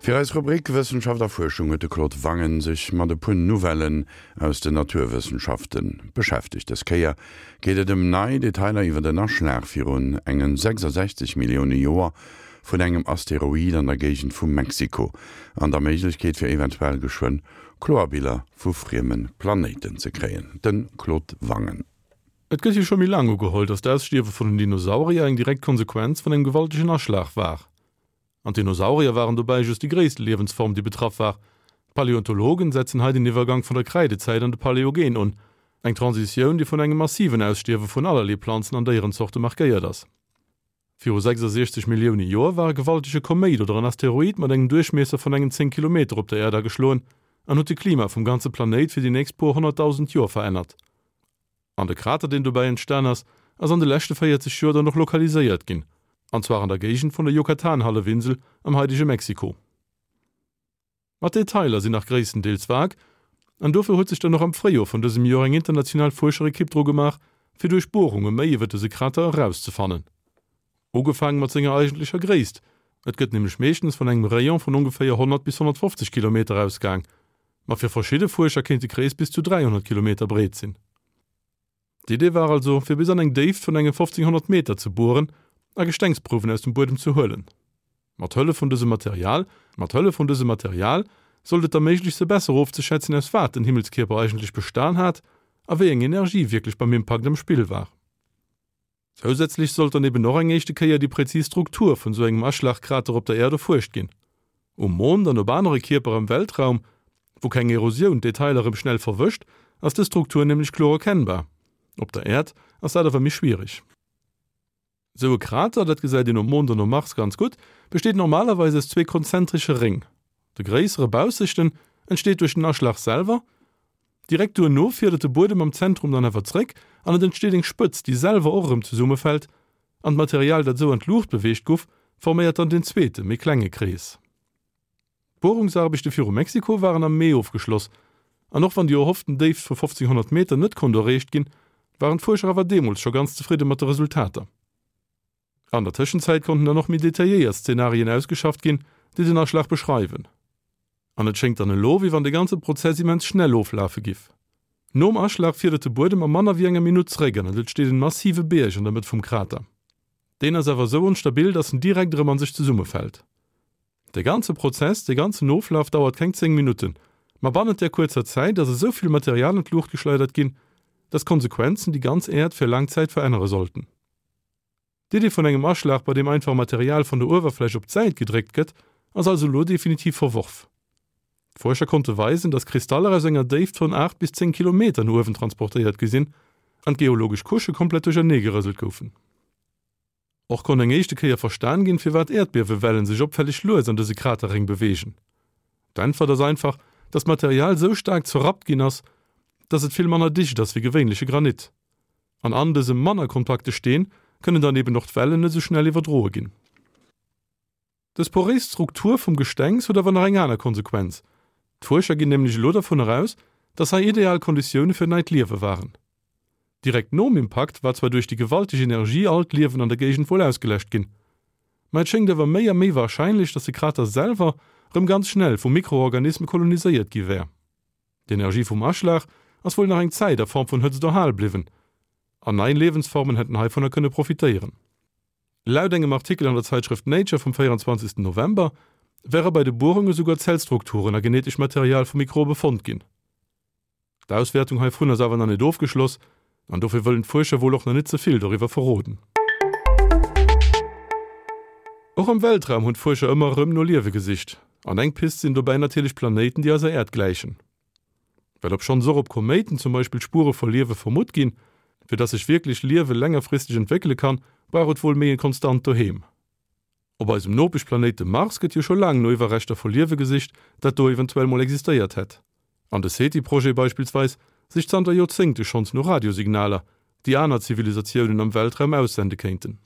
Fir eis Rubrik Wëssenschaft a Fuerschung huet de Claude Wangen sech mat e puer Nouvellen aus den Naturwëssenschafte beschäftegt. Dës Kéier geet et ëm nei Detailer iwwer en Aschlag virun engen 66 Millioune Joer vun engem Asteroid an der Géigend vu Mexiko an der Méiglechkeet fir eventuell geschwënn kloer Biller vu frieme Planéiten ze kréien. De Claude Wangen. Et gëtt jo scho méi laang ugeholl, datt d'Ausstierwe vun den Dinosaurier eng direkt Konsequenz vun engem gewaltegen Aschlag war. An d'Dinosaurier waren dobäi just déi gréisste Liewensform, déi betraff war. D'Paläontologen setzen hei den Iwwergank vun der Kräidezäit an de Paläogen un, eng Transitioun, déi vun engem massiven Ausstierwe vun allerlee Planzen an Déierenzorte markéiert ass. Viru 66 Millioune Joer war e gewaltege Koméit oder en Asteroid mat engem Duerchmiesser vun engen 10 Kilometer op der Äerd ageschloen an huet de Klima vum ganze Planéit fir déi nächst puer 100.000 Joer verännert. An de Krater, deen dobäi entstan ass, ass an de leschte 40 Joer dann och lokaliséiert ginn, an zwar an der Géigend vun der Yucatan-Hallefinsel am haidege Mexiko. Ma d'Detailer sinn nach gréisstendeels vag, an dofir huet sech dann och am Fréijoer vun dësem Joer eng international Fuerscherekipp dru gemaach, fir duerch Buerunge méi iwwer dëse Krater erauszefannen. Ugefaange mat senger eigentlecher Gréisst, et gëtt nämlech meeschtens vun engem Rayon vun ongeféier 100 bis 150 Kilometer ausgaang, ma fir verschidde Fuerscher kéint de Krees bis zu 300 Kilometer breet sinn. D'Idee war also, fir bis an eng Déift vun enge 1500 Meter ze bueren a Gestengsprouwen aus dem Buedem ze huelen. Mat Hëllef vun dësem Material Mat Hëllef vun dësem Material sollt et da méiglech se besser ofzeschätzen, aus wat den Himmelskierper eigentlech bestan hat a wéi eng Energie wierklech beim Impakt am Spill war. Zousätzlech sollt dann eben och eng éischte Kéier déi präzis Struktur vun sou engem Aschlagkrater op der Äerd erfuerscht ginn. Um Mond an op anere Kierper am Weltraum, wou keng Erosioun d'Detailer erëm schnell verwëscht, ass dës Struktur nämlech kloer erkennbar. Op der Äerd ass dat awer méi schwiereg. Sou e Krater, dat gesäit een um Mond an um Mars ganz gutt, besteet normalerweis aus zwee konzentresche Réng. De gréissere baussechten entsteet duerch den Aschlag selwer. Direkt duerno fiedert de Buedem am Zentrum dann awer zréck an et entsteet eng Spëtz, déi selwer och erëm zesummefält an d'Material, dat esou an d'Luucht beweegt guff, forméiert dann den zweete, méi klenge Krees. D'Buerungsaarbechte viru Mexiko waren am Mee ofgeschloss an och wann déi erhofften Déift vu 1500 Meter net konnt erreecht ginn, waren d'Fuerscher awer deemools scho ganz zefridde mat de Resultater. An der Tëschenzäit konnten dann och méi detailléiert Szenarien ausgeschafft ginn, déi den Aschlag beschreiwen. An et schéngt dann elo, wéi wann de ganze Prozess immens schnell oflafe giff. Nom Aschlag fiedert de Buedem a manner wéi enger Minutt zeréck an et entsteet en massive Bierg an der Mëtt vum Krater. Deen ass awer esou onstabil, dass en direkt erëm an sech zesummefält. De ganze Prozess, de ganzen Oflaf dauert keng 10 Minutten, ma bannent där kuerzer Zäit ass esou vill Material an d'Luucht geschleidert ginn, dass d'Konsequenzen déi ganz Äerd fir laang Zäit verännere sollten. D'Idee vun engem Aschlag, bei deem einfach Material vun der Uewerfläch op d'Säit gedréckt gëtt, ass also elo definitiv verworf. D'Fuerscher konnte weisen, datt Kristaller aus enger Déift vun 8 bis 10 Kilometer no uewen transportéiert gi sinn an d'geologesch Couchë komplett duerchernee gerëselt goufen. Och konnt eng éischte Kéier verstan ginn, firwat Äerdbiewewellen sech opfälleg lues an dëse Kraterréng beweegen. D'Äntwert ass einfach, datt d'Material sou staark zerrappt ginn ass, datt et vill manner dicht ass wéi gewéinleche Granit. An an dësem manner kompakte Steen kënnen dann eben och d'Wellen net esou schnell iwwerdroe ginn. Dës poréis Struktur vum Gestengs huet awer nach eng aner Konsequenz, D'Fuerscher ginn nämlech elo dervun eraus, dass hei ideal Konditioune fir neit Liewe waren. Direkt nom Impakt war zwar duerch déi gewalteg Energie all d'Liewen an der Géigend wuel ausgeläscht ginn, ma et schéngt awer méi a méi warscheinlech, dass de Krater selwer rëm ganz schnell vu Mikroorganisme koloniséiert gi wär. D'Energie vum Aschlag ass wuel nach eng Zäit a Form vun Hëtzt erhal bliwwen, an nei Liewensformen hätten heivunner kënne profitéieren. Laut engem Artikel an der Zeitschrëft Nature vum 24 November wäre bei de Buerunge souguer Zellstrukturen a genetesch Material vu Mikrobe fonnt ginn. D'Auswäertung heivun ass awer nach net ofgeschloss an dofir wëllen d'Fuerscher wuel och nach net ze vill doriwwer verroden. Och am Weltraum hunn d'Fuerscher ëmmer erëm no Liewe gesicht. An eng Pist sinn dobäi natierlech Planéiten, déi eiser Äerd gläichen. Well obschonns och op Koméiten zum Beispill Spuere vu Liewe vermutt ginn, fir dass sech wierklech Liewe längerfristeg entwéckele kann, brauch et wuel méi e konstant Doheem. Op eisem Nopeschplanéit dem Mars gëtt jo scho laang no Iwwerreschter vu Liewe gesicht, dat do eventuell mol existéiert hätt. An de SETI-Projet beispillsweis sicht zanter Joerzéngte schonns no Radiosignaler, déi aner Zivilisatiounen am Weltraum aussende kéinten.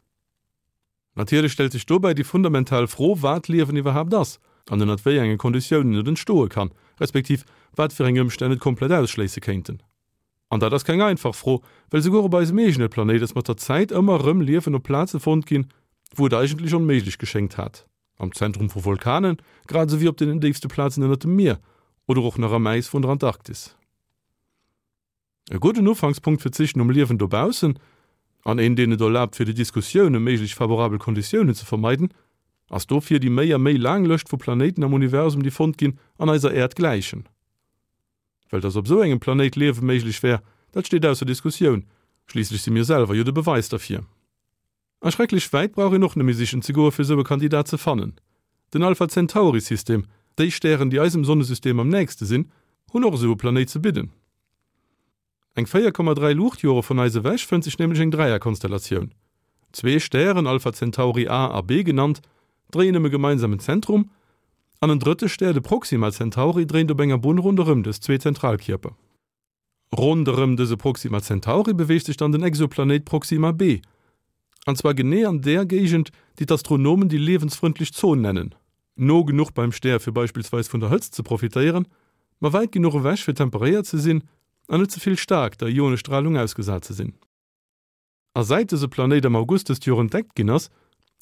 Natierlech stellt sech dobäi déi fundamental Fro, wat Liewen iwwerhaapt ass an ënnert wéi enge Konditiounen et entstoe kann, respektiv wat fir eng Ëmstänn et komplett ausschléisse kéinten. An dat ass keng einfach Fro, well souguer op eisem eegene Planéit ass mat der Zäit ëmmer erëm Liewen op Plaze fonnt ginn, wou et eigentlech onméiglech geschéngt hat. Am Zentrum vu Vulkanen, grad esou wéi op deenen déifste Plazen ënnert dem Mier oder och nach am Äis vun der Antarktis. E gudden Ufankspunkt fir d'Sich nom Liewen dobaussen, an een deen et erlaabt fir déi Diskussioun ëm méiglech favorabel Konditiounen ze vermeiden, ass dofir déi méi a méi laang Lëscht vu Planéiten am Universum déi fonnt ginn an eiser Äerd gläichen. Well dass op esou engem Planéit Liewe méiglech wär, dat steet ausser Diskussioun, schliisslech si mir selwer jo de Beweis derfir. A schrecklech wäit brauch een och net méi sichen ze goe fir esou e Kandidat ze fannen. Den Alpha Centauri System, déi Stären déi eisem Sonnesystem am nächste sinn, hunn och esou e Planéit ze bidden. Eng 4,3 Luuchtjore vun eis ewech fënnt sech nämlech eng Dräierkonstellatioun. Zwee Stären, Alpha Centauri A a B genannt, dréien ëm e gemeinsamen Zentrum, an en drëtte Stär, de Proxima Centauri, dréint op enger Bunn ronderëm dës zwee Zentralkierper. Ronderëm dëse Proxima Centauri beweegt sech dann den Exoplanéit Proxima b, an zwar genee an där Géigend, déi d'Astronomen déi liewensfrëndlech Zon nennen, no genuch beim Stär fir beispillsweis vun der Hëtzt ze profitéieren, ma wäit genuch ewech fir temperéiert ze sinn an net ze vill staark der Ionestralung ausgesat ze sinn. A säit dëse Planéit am August dëst Joer entdeckt ginn ass,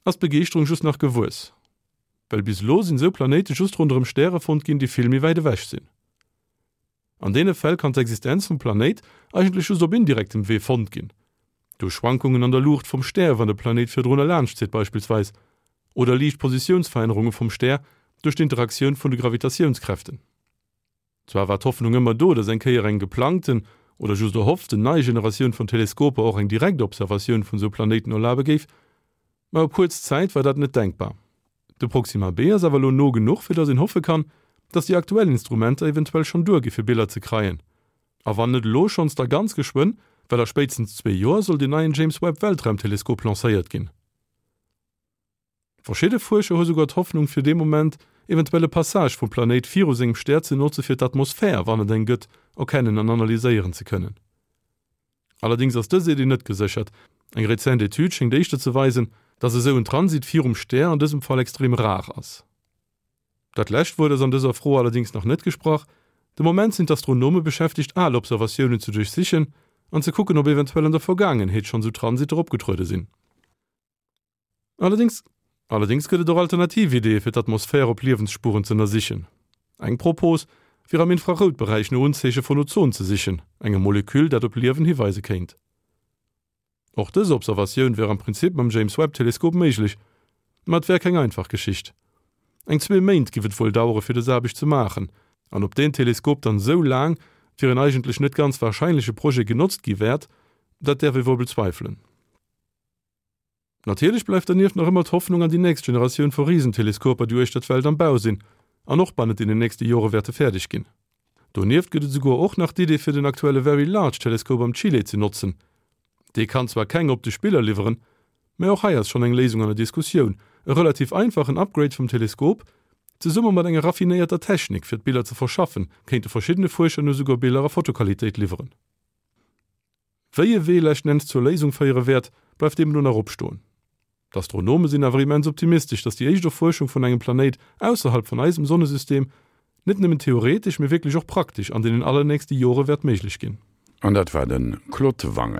ass d'Begeeschterung just nach gewuess. Well bis elo sinn esou Planéite just ronderëm Stäre fonnt ginn, déi vill méi wäit ewech sinn. An deene Fäll kann d'Existenz vum Planéit eigentlech just op indirektem Wee fonnt ginn, duerch Schwankungen an der Luucht vum Stär, wann de Planéit virdrun erlaanscht zitt beispillsweis, oder liicht Positiounsverännerunge vum Stär duerch d'Interaktioun vun de Gravitatiounskräften. Zwar war d'Hoffnung ëmmer do, datt eng Kéier eng geplangten oder just erhofften nei Generatioun vun Teleskoper och eng direkt Observatioun vun esou Planéiten erlabe géif, ma op kuerz Zäit war dat net denkbar. De Proxima b ass awer elo no genuch, fir datt een hoffe kann, datt déi aktuell Instrumenter eventuell schonn duergi fir Biller ze kreien. A wann net elo schonns, da ganz geschwënn, well a spéitstens zwee Joer soll deen neien James Webb Weltraumteleskop lancéiert ginn. Verschidde Fuerscher hu souguer d'Hoffnung fir dee Moment eventuell e Passage vum Planéit viru sengem Stär ze notze fir d'Atmosphär, wann et eng gëtt, erkennen an analyséieren ze kënnen. Allerdéngs ass dës Iddi net geséchert. Eng rezent Etüd schéngt éischter ze weisen, datt esou en Transit virum Stär an dësem Fall extrem rar ass. Dat lescht Wuert ass an dëser Fro allerdéngs nach net gesprach. De Moment sinn d'Astronome beschäftegt al Observatiounen ze duerchsichen an ze kucken, ob eventuell an der Vergaangenheet schonn esou Transitter opgetruede sinn. Allerdéngs Allerdéngs gëtt et och alternativ Ideeë fir d'Atmosphär op Liewensspuren z'ënnersichen. Eng Propos wier am Infraroutberäich no Unzeeche vun Ozon ze sichen, engem Moleküll dat op Liewen hiweise kéint. Och dës Observatioun wär am Prinzip mam James Webb Teleskop méiglech, ma et wär keng einfach Geschicht. Eng zwee Méint giff et wuel dauere fir dës Aarbecht ze maachen, an ob deen Teleskop dann esou laang fir en eigentlech net ganz warscheinleche Projet genotzt gi wäert, dat däerf ee wuel bezweifelen. Natierlech bleift dernieft nach ëmmer d'Hoffnung an déi nächst Generatioun vu Risenteleskoper, déi uechter d'Welt am Bau sinn an och bannent deenen nächste Jore wäerte fäerdeg ginn. Donieft gëtt et esouguer och nach d'Idee fir den aktuelle Very Large Telescope am Chile ze notzen. Dee kann zwar keng optesch Biller liwweren, mä och hei ass schonn eng Léisung an der Diskussioun, e relativ einfachen Upgrade vum Teleskop, zesumme mat enger raffinéierter Technik fir d'Biller ze verschaffen, kéinte verschiddene Fuerscher no esouguer Biller a Fotoqualitéit liwweren. Wéi e Wee leschten Enns zur Léisung féiere wäert, bleift deemno nach opstoen. D'Astronome sinn awer immens optimistesch, datt déi éischt Erfuerschung vun engem Planéit ausserhalb vun eisem Sonnesystem net nëmmen theoretesch, mee wierklech och praktesch an deenen allernächste Jore wäert méiglech ginn. An dat war de Claude Wangen.